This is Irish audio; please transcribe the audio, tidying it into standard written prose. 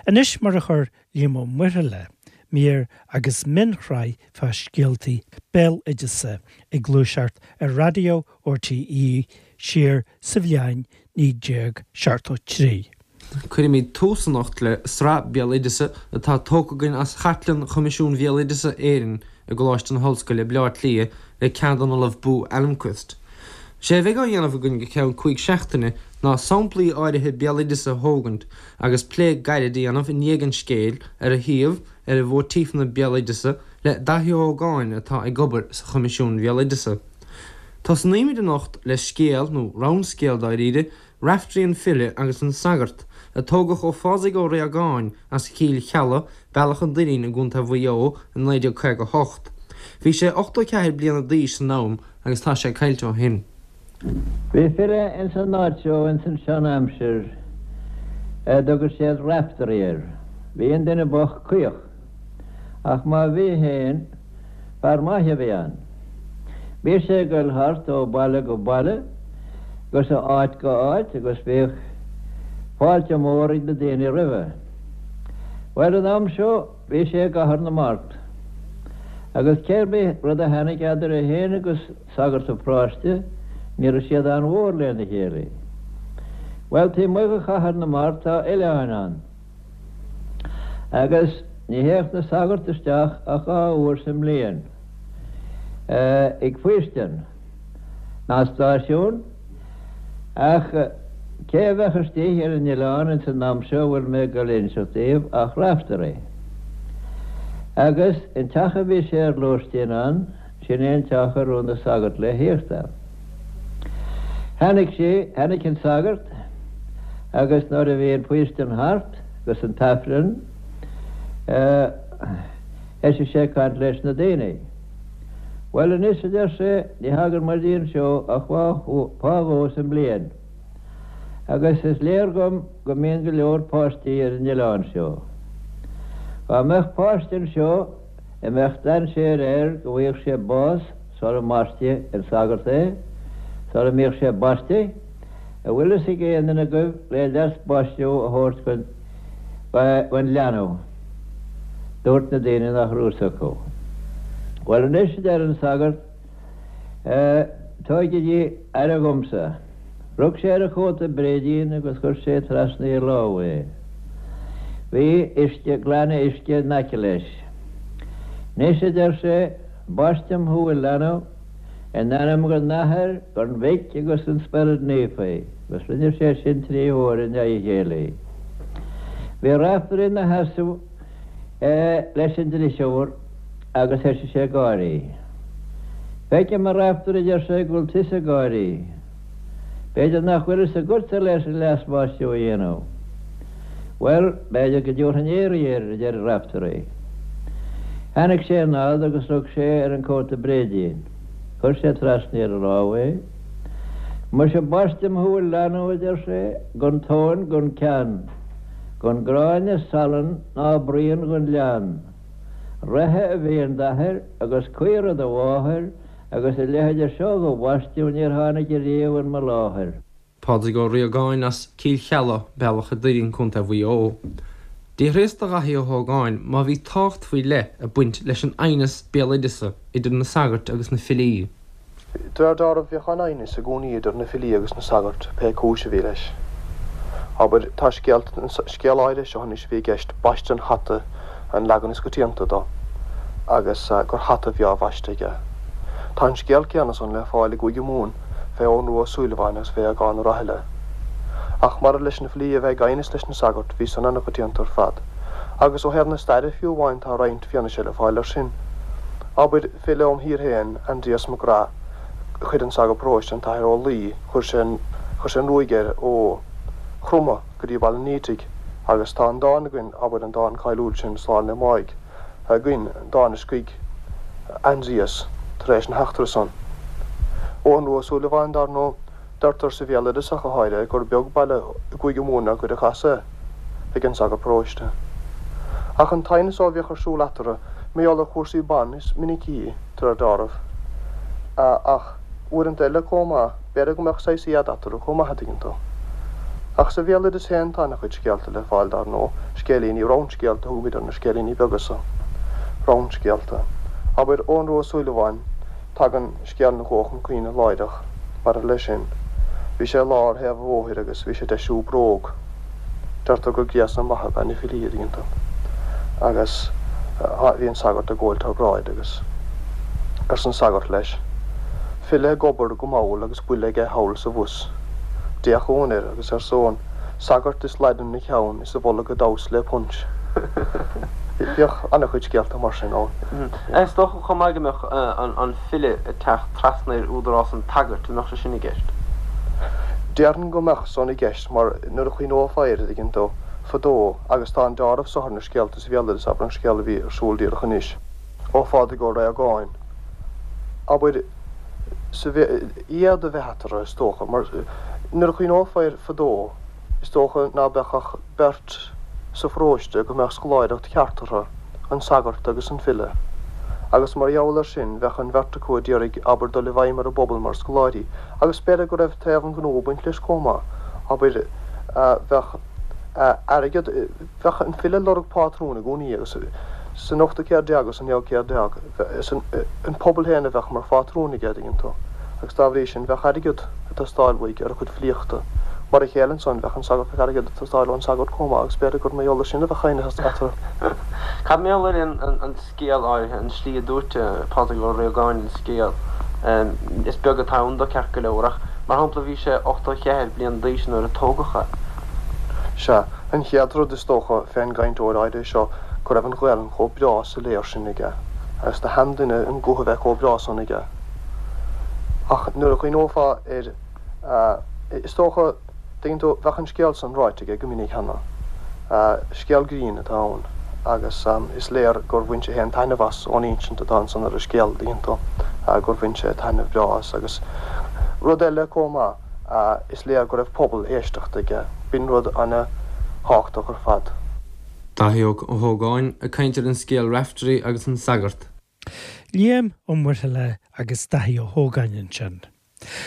Anois mar a chuir Liam Ó Muirthile mír agus mionshraith fá scéaltaí béaloideasa ag gluaiseacht ar raidió RTÉ siar sa bhliain 1973. Cuirfimid tús anocht le sraith béaloideasa atá tógtha againn as Chartlann Choimisiún Bhéaloideasa Éireann i gColáiste na hOllscoile, Baile Átha Cliath, le ceann den Ollamh Bo Almqvist. Sé a bheidh á dhéanamh againn go ceann 5 seachtaine ná samplaí áirithe béaloideasa a thógaint agus plé gairid a dhéanamh i ndiaidh an scéil ar a shuíomh, ar a mhóitífeanna béaloideasa le Daithí Ó hÓgáin atá ag obair sa Choimisiún Bhéaloideasa. Tosnaímid anocht le scéal, nó rannscéal dáiríre, Raiftearaí an File agus an Sagart, a tógadh ó Phádraig Ó Riagáin as Cill Cheallaigh, Bealach an Doirín i gContae Mhaigh Eo i 1958. Bhí sé 84 bliana d'aois san am agus tá sé caillte ó shin. Bhí file ins an áit seo ins an sean aimsir a dtugadh siad Raiftearaí air. Bhí an duine bocht caoch. Ach má bhí fhéin, fear maith a bhí ann. Bhí sé ag goil thart ó baile go baile agus ó áit go áit agus bhíodh fáilte mór ag na daoine roimhe. Bhuel an am seo bhí sé i gCathair na Mart agus cé bith rud a tháinig eadar é fhéin agus sagart an pharóiste, ní raibh siad an-mhór lena chéile. Bhuel, taobh amuigh de Chathair na Mart tá oileáin ann, agus ní théadh na sagairt isteach ach 2 uair sa mbliain ag faoistin, ná stáisiún, ach cé a bheadh istigh ar an oileán ins an am seo a bhfuil mé ag dul a inseacht daoibh ach Raiftearaí. Agus an teach a bhí sé ar lóistín ann, Sin é an teach a raibh na sagairt le thíocht ann. Tháinig sé, tháinig an sagart agus nuair a bhí an faoistin thart agus an t-aifreann, thoisigh sé ag caint leis na daoine. Bhuel anois, a deir sé, ní thagann muide anseo ach fá dhó sa mbliain agus is léir dhom go mbíonn go leor páistí ar an oileán seo. Dhá mbeadh páiste anseo, a mbeadh dainséar air go bhfaigheadh sé bás sara mbaistfidh an sagart é, sara mbíodh sé baiste, an bhfuil fhios ag aon duine agaibh le leas baisteadh a thabhairt gon leanbh? Dúirt na daoine nach raibh fhios acu. Bhuel anois, a deir an sagart, tógaigí aire dhomsa. Rug sé ar a chóta bréidín agus chuir sé trasna a lámh é. Bhí uisce, gloine uisce in aice leis. Anois, a deir sé, baistim thú, a leanbh, in ainm an Athar, an Mhic agus an Spioraid Naofa, agus rinne sé sin trí huaire i ndiaidh a chéile. Bhí Raiftearaí ina sheasamh leis an drisiúr agus thoisigh sé ag gáirí. Feicim, a Raiftearaí, a deir sé, go bhfuil tusa ag gáirí. B'fhéidir nach bhfuil fhios agatsa leis an leasbhaisteadh a dhéanamh. Bhuel, b'fhéidir go dtabharfainn iarraidh air, a deir Raiftearaí. Tháinig sé anall agus rug sé ar an cóta bréidín. Chuir sé trasna ar a lámh é. Muise baistim thú, a leanbh, a deir sé, gan tóin gan ceann, gan gráinne salann ná braon gon leann. Reithe a bhí in d'athair agus caora do mháthair agus a leithide seo dho bhaisteadh níor tháinig ariamh in mo láthair. Pádraig Ó Riagáin as Cill Cheallaigh, Bealach a' Doirín, Co. Mhaigh Eo. D'fhiafraíos de Dhaithí Ó hÓgáin má bhí tábhacht faoi leith ag baint leis an aighneas béaloideasa idir na sagairt agus na filí. De réir dealraimh, bhíodh an-aighneas i gcónaí idir na filí agus na sagairt, pé cúis a bhí leis. Abair, tá scéal, an scéal áirithe seo anois a bhí i gceist, Baisteadh an Hata an leagan is coitianta dó, agus gur hata a bhí á bhaisteadh aige. Tá an scéal céanna san le fáil i gCúige Mumhan fé Eoghan Rua Ó Súilleabháin agus fé Aogán Ó Rathaille. Ach maidir leis na filí a bheith ag aighneas leis na sagairt, bhí san an-choitianta ar fad. Agus ó thaobh na staire fiú amháin tá roinnt fianaise le fáil air sin. Abair, File óm thír féin, Aindrias Mac Graith, chuir an sagart paróiste, an tAthair Ó Laoi, chuir sé an, chuir sé an ruaig air ó Chromtha go dtí Baile an Fhaoitigh agus tá an dán againn, abair, an dán cáiliúil sin, Slán le Máigh, againn, dán a scrígh Aindrias tar éis na heachtra san. Eoghan Rua Ó Súilleabháin, dar ndóigh. Deirtear sa bhéaloideas ach go háirithe gur beag baile i gCúige Mumhan nár cuireadh as é ag an sagart paróiste. Ach an t-aighneas a bhíodh ar siúl eatarthu, mar gheall ar chúrsaí ban is minicí, de réir dealraimh. Ach uaireanta eile comh maith, b'fhéidir go mbeadh saghas éad eatarthu chomh maith, a dtuigeann tú. Ach sa bhéaloideas féin tá ana-chuid scéalta le fáil, dar ndóigh. Scéilíní, roundscéalta a thugaimid ar na scéilíní beaga so. Roundscéalta. Abair, Eoghan Rua Ó Súilleabháin, tagann scéal na gcó chun cuimhne láithreach, maidir leis sin. Bhí sé i lár thaobh an bhóthair agus bhí sé ag deisiú bróg. Deirtear gur gréasán maith ab ea na filí, an dtuigeann tú. Agus bhí an sagart ag gabháil thar bráid agus arsa an sagart leis, File ag obair go mall agus buille aige thall sa bhus. D'fhéach Eoghan air agus arsa Eoghan, Sagart is laidin 'na cheann is a bholg ag damhsa le punch. Bhíodh an-chuid scéalta mar sin ann. Is dócha chomh maith go mbeadh an file ag teacht trasna ar údarás an tsagairt, an mbeadh sé sin i gceist? Déarfainn go mbeadh san i gceist mar nuair a chuimhneofá air, an dtuigeann tú, fadó, agus tá an deáramh so ar na scéalta sa bhéaloideas, abair an scéal a bhí ar siúl díreach anois, ó Phádraig Ó Réagáin, abair, sa éad a bheith eatarthu, is dócha, mar nuair a chuimhneofá air fadó, is dócha ná beadh ach beirt sa pharóiste go mbeadh scoláireacht cheart orthu, an sagart agus an file. Agus mar gheall air sin, bheadh an bheirt acu a d'iarraidh, abair, dul i bhfeidhm ar an bpobal mar scoláirí, agus b'fhéidir go raibh taobh an ghnó ag baint leis chomh maith, abair, bheadh airgead, bheadh an file ag lorg pátrún i gcónaí agus san ochtú céad déag agus san naoú céad déag, an pobal féin a bheadh mar phátrún aige, an dtuigeann tú, agus dá bhrí sin bheadh airgead ag teastáil uaidh ar a chuid filíochta. Mar a chéile ansan, bheadh an sagart, bheadh airgead ag teastáil ón sagart chomh maith agus b'fhéidir gur mar gheall air sin a bheadh aighneas eatarthu. Cad mar gheall ar an scéal áirithe, an tslí a dúirt Pádraig Ó Riagáin an scéal? Is beag atá ann dó ceart go leor ach, mar shampla, bhí sé 84 bliain d'aois nuair a tógadh é. Sea, an chéad rud is dócha fén gcainteoir áirithe seo go raibh an Ghaelainn chomh breá soiléir sin aige, agus do sheanduine an guth a bheith chomh breá san aige. Ach nuair a chuimhneofá air, is dócha, tuigeann tú, bheadh an scéal san ráite aige go minic cheana. Scéal grinn atá ann agus is léir gur bhain sé féin taitneamh as ón insint atá ansan ar an scéal, tuigeann tú, gur bhain sé taitneamh breá as. Agus rud eile chomh maith, is léir go raibh pobal éisteachta aige. B'in rud ana-thábhachtach ar fad. Dáithí Ó hÓgáin ag caint ar an scéal Raftery agus an Sagart. Liam Ó Muirthile agus Dáithí Ó hÓgáin ansin.